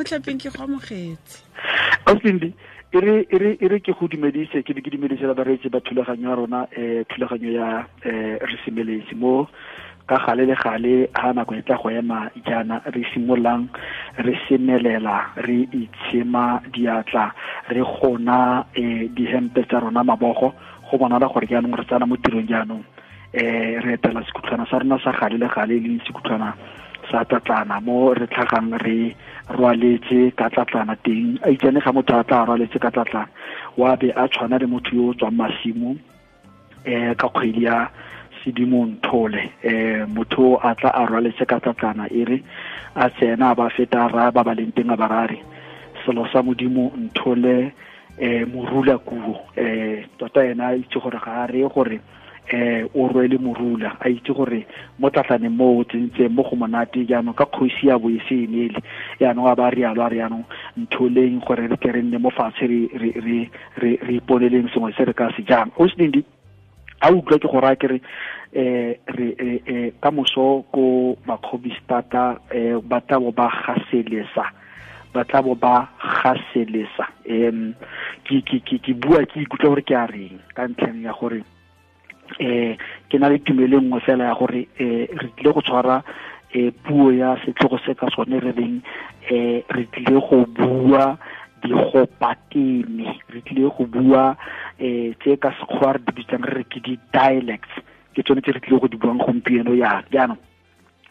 Motlhaping ke go amogetse. Auslindi, e re ke go dumedise, ke be ke dumedise la bareetsi ba thulaganyo ya rona, thulaganyo ya Re Semeletse, mo ka gale le gale ha nako e tla go ema jaana re simololang re semelela, re itshema diatla, re gona dihempe tsa rona mabogo, go bonala gore jaanong re tsena mo tirong. Jaanong re etela sekhutlhwana sa rona sa gale le gale, e leng sekhutlhwana sa tlatlana, mo re tlhagang re rwaletse ka tlatlana teng. A itsane ga motho a tla rwaletse ka tlatlana, wa be a tshwana le motho yo o tswang masimo ka kgwedi ya Sedimonthole. Motho a tla a rwaletse ka tlatlana, e re a tsena, ba feta ra ba ba leng teng, a ba rare selo sa Modimo nthole morula kuo. Tota ena a itse gore ga a re gore o rwele morula, a itse gore mo tlatlaneng mo o tsentseng mo go monate. Jaanong ka kgosi ya bo e se enele, jaanong a ba rialo, a re jaanong ntholeng gore re tle re nne mo fatshe, re iponeleng sengwe se re ka se jang. O Selindi, a utlwa ke go raya ke re re ka moso ko Makgobistata ba tla bo ba gaselesa, ba tla bo ba gaselesa. Ke bua ke ikutlwa gore ke a reng, ka ntlheng ya gore ke na le tumelo e nngwe fela ya gore re tlile go tshwara puo ya setlhogo se ka sone re reng re tlile go bua digopateme, re tlile go bua tse ka Sekgowa re di bitsang re re ke di-dialects. Ke tsone tse re tlile go di buang gompieno. Ya jaanong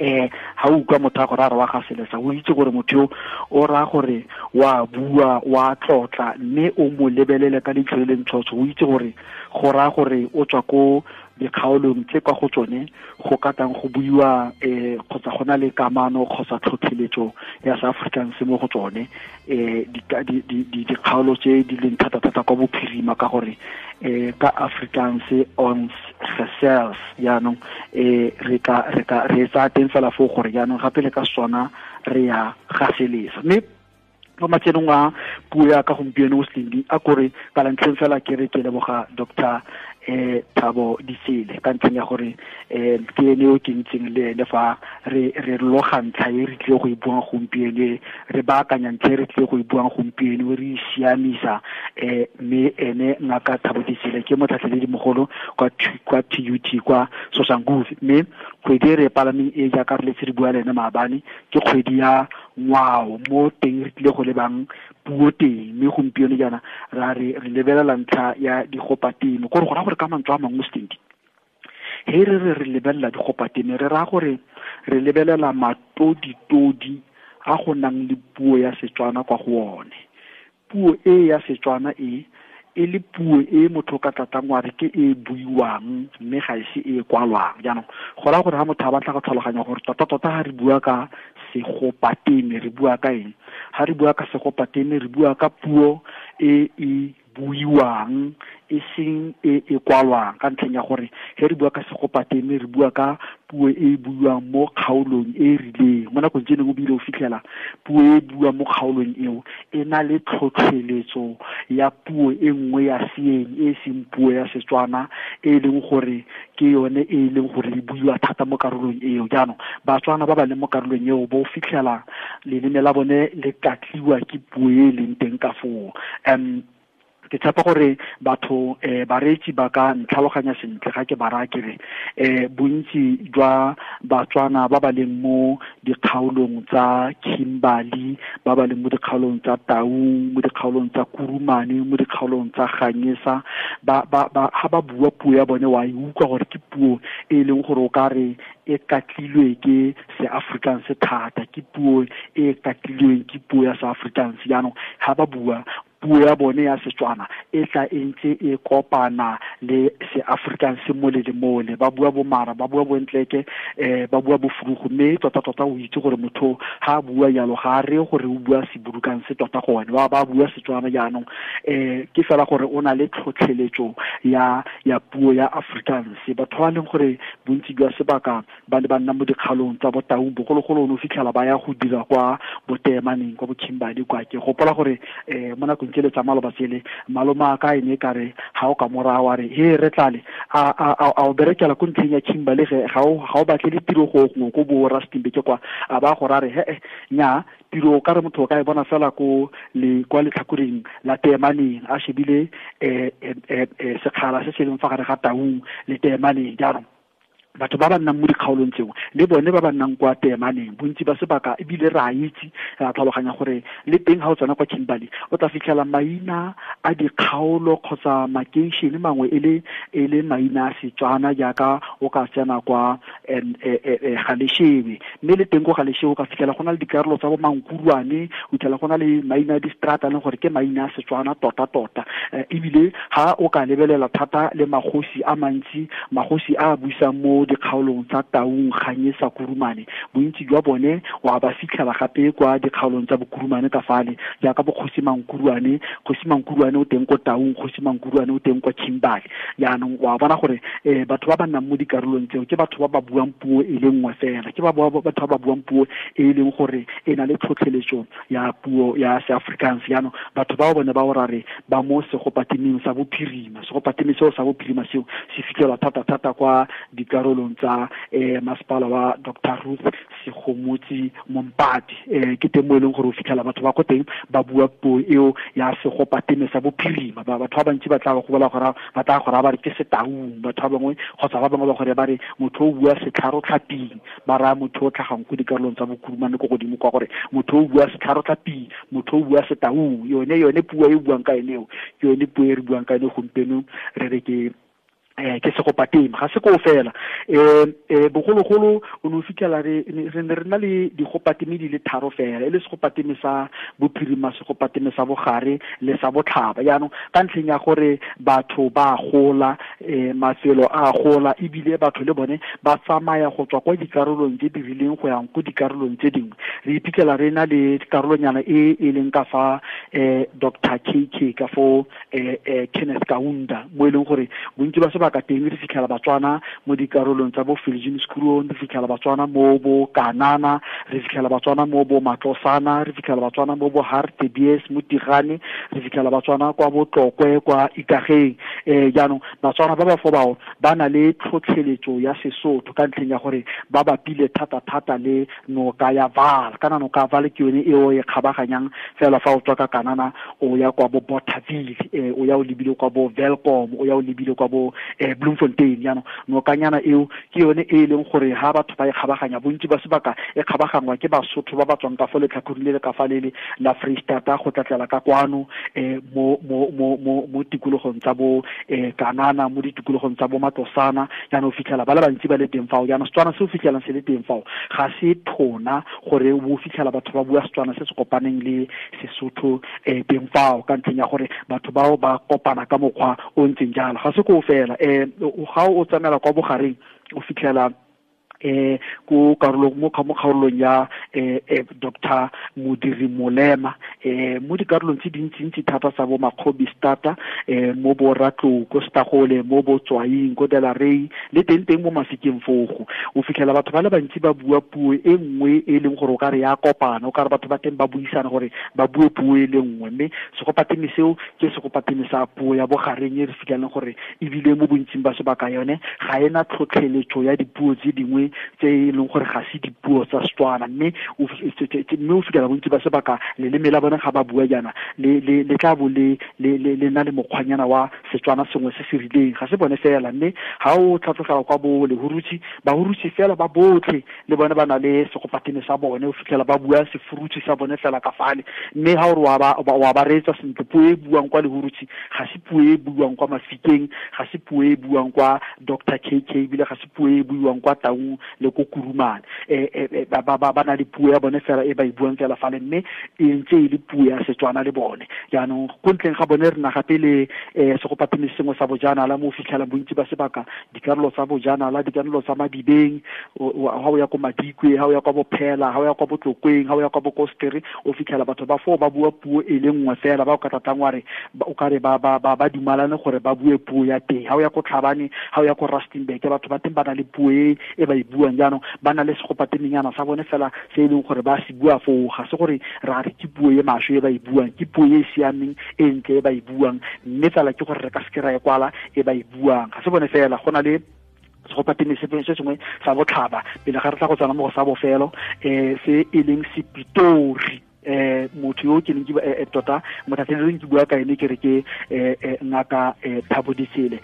ha o utlwa motho a gore a re wa ga selesa, o itse gore motho yo o raya gore wa bua, wa tlotla, mme o mo lebelele ka leitlho le le ntshotsho, o itse gore go raya gore o tswa ko dikgaolong tse kwa go tsone go ka tang go buiwa kgotsa go na le kamano kgotsa tlhotlheletso ya sa Afrikaans mo go tsone, dikgaolo tse di leng thata-thata kwa bophirima, ka gore ka Afrikaans ons gesels. Jaanong re ka re tsaya teng fela foo gore jaanong gape le ka sona re ya gaselesa. Mme mo matsenong a puo ya ka gompieno o Selindi, a kore ka lantlheng fela ke re ke leboga Doctor Thabo Ditsele, ka ntlheng ya gore ke ene yo ke ntseng le ene fa re loga ntlha e re tlile go e buang gompieno, re baakanya ntlha e re tlile go e buang gompieno, re e siamisa. Mme ene Ngaka Thabo Ditsele ke motlhatlheledi mogolo kwa TUT kwa Soshanguve. Mme kgwedi e re e palameng e, jaaka re letse re bua le ene maabane, ke kgwedi ya ngwao, mo teng re tlile go lebang puo teng. Mme gompieno jaana ra re re lebelela ntlha ya digopatemo, gore go raya gore ka mantswe a mangwe, Stendi, he re re re lebelela digopatemo, re raya gore re lebelela matoditodi a go nang le puo ya Setswana kwa go one, puo e ya Setswana e e le puo e motho ka tlatang wa re ke e buiwang, mme ga ise e kwalwang. Jaanong go raya gore ga motho a batla go tlhaloganya gore tota-tota ga re bua ka segopateme re bua ka eng, ga re bua ka segopateme re bua ka puo e e buiwang, e seng e e kwalwang, ka ntlheng ya gore he re bua ka segopateme re bua ka puo e e buiwang mo kgaolong e e rileng. Mo nakong tse dingwe o bile o fitlhela puo e e buiwang mo kgaolong eo e na le tlhotlheletso ya puo e nngwe ya seeng e seng puo ya Setswana, e leng gore ke yone e leng gore e buiwa thata mo karolong eo. Jaanong Batswana ba ba leng mo karolong eo bo fitlhela leleme la bone le katliwa ke puo e e leng teng ka foo. Ke tshepa gore batho, bareetsi ba ka ntlhaloganya sentle ga ke ba raya ke re bontsi jwa Batswana ba ba leng mo dikgaolong tsa Kimberley, ba ba leng mo dikgaolong tsa Taung, mo dikgaolong tsa Kurumane, mo dikgaolong tsa Ganyesa, ba ha ba bua puo ya bone, wa e utlwa gore ke puo e leng gore o ka re e katlilwe ke se-Afrikaans thata, ke puo e katlilweng ke puo ya se-Afrikaans. Jaanong ha ba bua puo ya bone ya Setswana, e tla e ntse e kopana le se-Afrikaans mole le mole, ba bua bomara, ba bua bontleke, ba bua bofrugu. Mme tota-tota o itse gore motho ha a bua jalo ga a re gore o bua Seburukang se tota gone ba bua Setswana. Jaanong ke fela gore o na le tlhotlheletso ya puo ya Afrikaans. Batho ba leng gore bontsi jwa sebaka ba ne ba nna mo dikgalong tsa Botaung bogologolo, o ne o fitlhela ba ya go dira kwa Botemaneng, kwa Bokhimbadi kwa. Ke gopola gore mo nakong tsele tsa maloba tsele maloma ka ene ka re ha o ka morago wa re he re tlale a o berekela ko ntlheng ya Kimberley ga o batle le tiro go gongwe ko bo Rustenburg kwa a ba go ra re he nya tiro ka re motho o ka e bona fela ko le kwa letlhakoreng la Teemaneng a shebile sekgala se se leng fa gare ga Taung le Teemaneng. Jaanong batho ba ba nnang mo dikgaolong tseo le bone ba ba nnang kwa Teemaneng bontsi ba sebaka ebile re a itse re a tlhaloganya gore le teng ga o tsena kwa Kimberley o tla fitlhela maina a dikgaolo kgotsa makeišene mangwe e le maina a Setswana jaaka o ka tsena kwa Galeshewe, mme le teng ko Galeshewe o ka fitlhela go na le dikarolo tsa bo Mankurwane, o fitlhela go na le maina a distrata leng gore ke maina a Setswana tota-tota. Ebile ha o ka lebelela thata le magosi a mantsi, magosi a buisang mo dikgaolong tsa Taung, Ganyesa, Kurumane, bontsi jwa bone wa ba fitlhela gape kwa dikgaolong tsa Bokurumane ka fale, jaaka bo Kgosi Mankurwane. Kgosi Mankurwane o teng ko Taung, Kgosi Mankurwane o teng kwa Kimberley. Jaanong wa bona gore batho ba ba nnang mo dikarolong tseo ke batho ba ba buang puo e le nngwe fela, ke batho ba ba buang puo e leng gore e na le tlhotlheletso ya puo ya Seafrikaans. Jaanong batho bao bone ba o ra re ba mo segopatemeng sa bophirima. Segopateme seo sa bophirima seo se fitlhelwa thata-thata kwa dikarolong tsa masepala wa Dr. Ruth Segomotsi Mompati. Ke teng mo e leng gore o fitlhela batho ba ko teng ba bua puo eo ya segopateme sa bophirima. Batho ba bantsi ba tla go bola gore ba tla go raya ba re ke Setaung, batho ba bangwe kgotsa ba bangwe ba gore ba re motho o bua setlharotlhaping, ba raya motho o tlhagang ko dikarolong tsa Bokurumane ko godimo kwa gore motho o bua setlharotlhaping, motho o bua Setaung. Yone puo e buang ka ene eo ke yone puo e re buang ka ene gompieno re re ke segopateme. Ga se koo fela, bogologolo o ne o fitlhela re ne re na le digopateme di le tharo fela, e le segopateme sa bophirima, segopateme sa bogare le sa botlhaba. Jaanong ka ntlheng ya gore batho ba gola, mafelo a gola, ebile batho le bone ba tsamaya go tswa kwa dikarolong tse di rileng go yang ko dikarolong tse dingwe, re iphitlhela re na le karolonyana e e leng ka fa Dr. KK ka fo Kenneth Kaunda, mo e leng gore bontsi ba sebaka teng re fitlhela Batswana mo dikarolong tsa bo Viljoenskroon, re fitlhela Batswana mo bo Kanana, re fitlhela Batswana mo bo Matlosana, re fitlhela Batswana mo bo Hartebees, mo Tigane, re fitlhela Batswana kwa bo Tlokwe, kwa Ikageng. Jaanong Batswana ba ba fo bao ba na le tlhotlheletso ya Sesotho ka ntlheng ya gore ba bapile thata-thata le noka ya Vaal. Kana noka ya Vaal ke yone eo e kgabaganyang fela fa o tswa ka Kanana o ya kwa bo Bothaville, o ya o lebile kwa bo Welkom, o ya o lebile kwa bo Bloemfontein. Jaanong nokanyana eo ke yone e leng gore ha batho ba e kgabaganya, bontsi ba sebaka e kgabagangwa ke Basotho ba ba tswang ka fo letlhakoreng le le ka fa lele la Freistata go tlatlela ka kwano mo tikologong tsa bo Kanana, mo ditikologong tsa bo Matlosana. Jaanong o fitlhela ba le bantsi ba le teng fao. Jaanong Setswana se o fitlhelang se le teng fao ga se thona gore o fitlhela batho ba bua Setswana se se kopaneng le Sesotho teng fao, ka ntlheng ya gore batho bao ba kopana ka mokgwa o ntseng jalo. Ga se koo fela, ga o tsamaela kwa bogareng o fitlhela ko karolong mo kgaolong ya Dr. Modiri Molema, mo dikarolong tse dintsintsi thata tsa bo Makgobi Stata, mo bo Ratlou ko Stagole, mo bo Tswaing ko Delarey, le teng teng mo Mafikeng fogo o fitlhela batho ba le bantsi ba bua puo e nngwe e leng gore o ka re ya kopana, o ka re batho ba teng ba buisana gore ba bue puo e le nngwe. Mme segopateme seo ke segopateme sa puo ya bogareng e re fitlhelang gore ebile mo bontsing ba sebaka yone ga ena tlhotlheletso ya dipuo tse dingwe tse e leng gore ga se dipuo tsa Setswana. Mme o fitlhela bontsi ba sebaka leleme la bone ga ba bua jaana le tla bo le na le mokgwanyana wa Setswana sengwe se se rileng. Ga se bone fela, mme ga o tlhatlogela kwa bo Lehurutshi, Bahurutshi fela ba botlhe le bone ba na le segopatene sa bone, o fitlhela ba bua Sefurutshi sa bone fela ka fale. Mme ga o re wa ba reetsa sentle, puo e buang kwa Lehurutshi ga se puo e buang kwa Mafikeng, ga se puo e buang kwa Dr. KK, ebile ga se puo e buiwang kwa Taung le ko Kurumane. Ba na le puo ya bone fela e ba e buang fela fale, mme e ntse e le puo ya Setswana le bone. Jaanong ko ntleng ga bone re na gape le segopateme sengwe sa bojanala mo o fitlhelang bontsi ba sebaka dikarolo tsa bojanala, dikarolo tsa Madibeng, ha o ya ko Madikwe, ha o ya kwa Bophela, ha o ya kwa Botlokweng, ha o ya kwa Bokostere, o fitlhela batho ba foo ba bua puo e le nngwe fela, ba o ka tlatlang wa re o ka re ba dumalane gore ba bue puo ya teng. Ha o ya ko Tlhabane, ha o ya ko Rustenburg, batho ba teng ba na le puo e ba e buang. Jaanong ba na le segopatemenyana sa bone fela se e leng gore ba se bua foo, ga se gore ra re ke puo e maswe e ba e buang, ke puo e e siameng e ntle e ba e buang, mme fela ke gore re ka seke ra e kwala e ba e buang. Ga se bone fela, go na le segopatene se sengwe sa botlhaba pele ga re tla go tsena mo go sa bofelo, se e leng Sepitori. Motho yo ke neng ke tota mothatlheleleng ke bua ka ene, ke re ke ngaka Thabo Ditsele,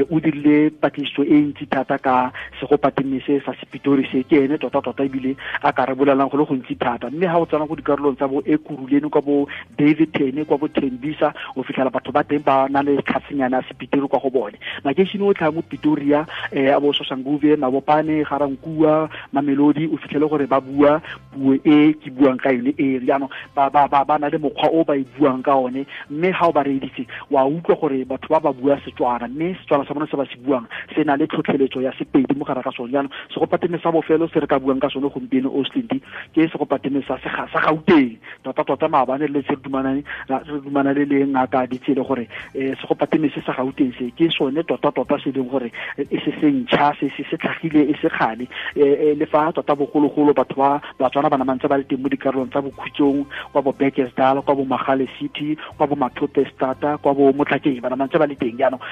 o dirile patlisiso e ntsi thata ka segopatene se sa Sepitori se, ke ene tota tota ebile a ka re bolelang go le gontsi thata. Mme ha o tsena go dikarolong tsa bo Ekurhuleni, kwa bo Davidton, kwa bo Tembisa, o fitlhela batho ba teng ba na le tlhasenyana ya Sepitori kwa go bone. Makeišene o tlhaa mo Pretoria, a bo Soshanguve, Mabopane, Garankuwa, Mamelodi, o fitlhele gore ba bua puo e ke buang ka yone e. Jaanong ba na le mokgwa o ba e buang ka one, mme ha o ba reeditse wa utlwa gore batho ba ba bua Setswana, mme Setswana sa bone se ba se buang se na le tlhotlheletso ya Sepedi mo gare ga sone. Jaanong segopatene sa bofelo se re ka buang ka sone gompieno, Oslindi, ke segopatene sa Gauteng. Tota tota maabane le se re dumanane le ngaka Ditsele gore segopatene se sa Gauteng se ke sone tota tota se leng gore e se se ntšha, se se tlhagile e se kgale, le fa tota bogologolo batho ba Batswana ba namantse ba le teng mo dikarolong tsa Bokhutsong, kwa bo Bekkersdal, kwa bo Magale City, kwa bo Mathope Stata, kwa bo Motlhakeng, ba namantse ba le teng. Jaanong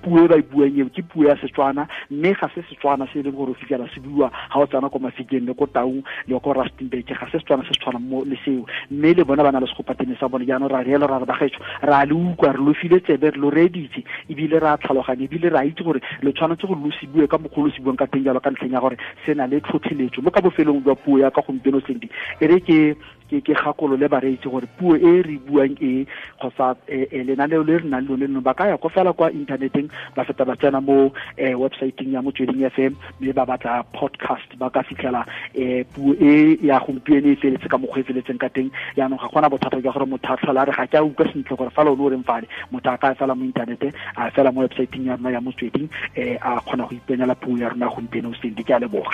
puo e ba e buang eo ke puo ya Setswana, mme ga se Setswana se e leng gore o fitlhela se buiwa ga o tsena ko Mafikeng le ko Taung le ko Rustenburg, ga se Setswana se se tshwanang mo le seo, mme le bona ba na le segopatene sa bone. Jaanong ra reela ra re bagaetsho, ra le utlwa, re lo file tsebe, re lo reeditse, ebile ra tlhaloganya, ebile ra itse gore le tshwanetse gore lo se bue ka mokgwa lo se buang ka teng jalo, ka ntlheng ya gore se na le tlhotlheletso. Mo ka bofelong jwa puo ya ka gompieno, Cindy, e re ke gakolole bareetsi gore puo e re buang e kgotsa lenaneo le re nang lone leno, ba ka ya ko fela kwa inthaneteng, ba feta ba tsena mo websiteng ya Motsweding FM, mme ba batla podcast, ba ka fitlhela puo e ya gompieno e feletse ka mokgwa e feletseng ka teng. Jaanong ga gona bothata jwa gore motho a tlhola a re ga ke a utlwa sentle gore fa lone o reng fale, motho a ka fela mo inthanete, a fela mo websiteng ya rona ya Motsweding, a kgona go ipenyela puo ya rona gompieno. Cindy, ke a leboga.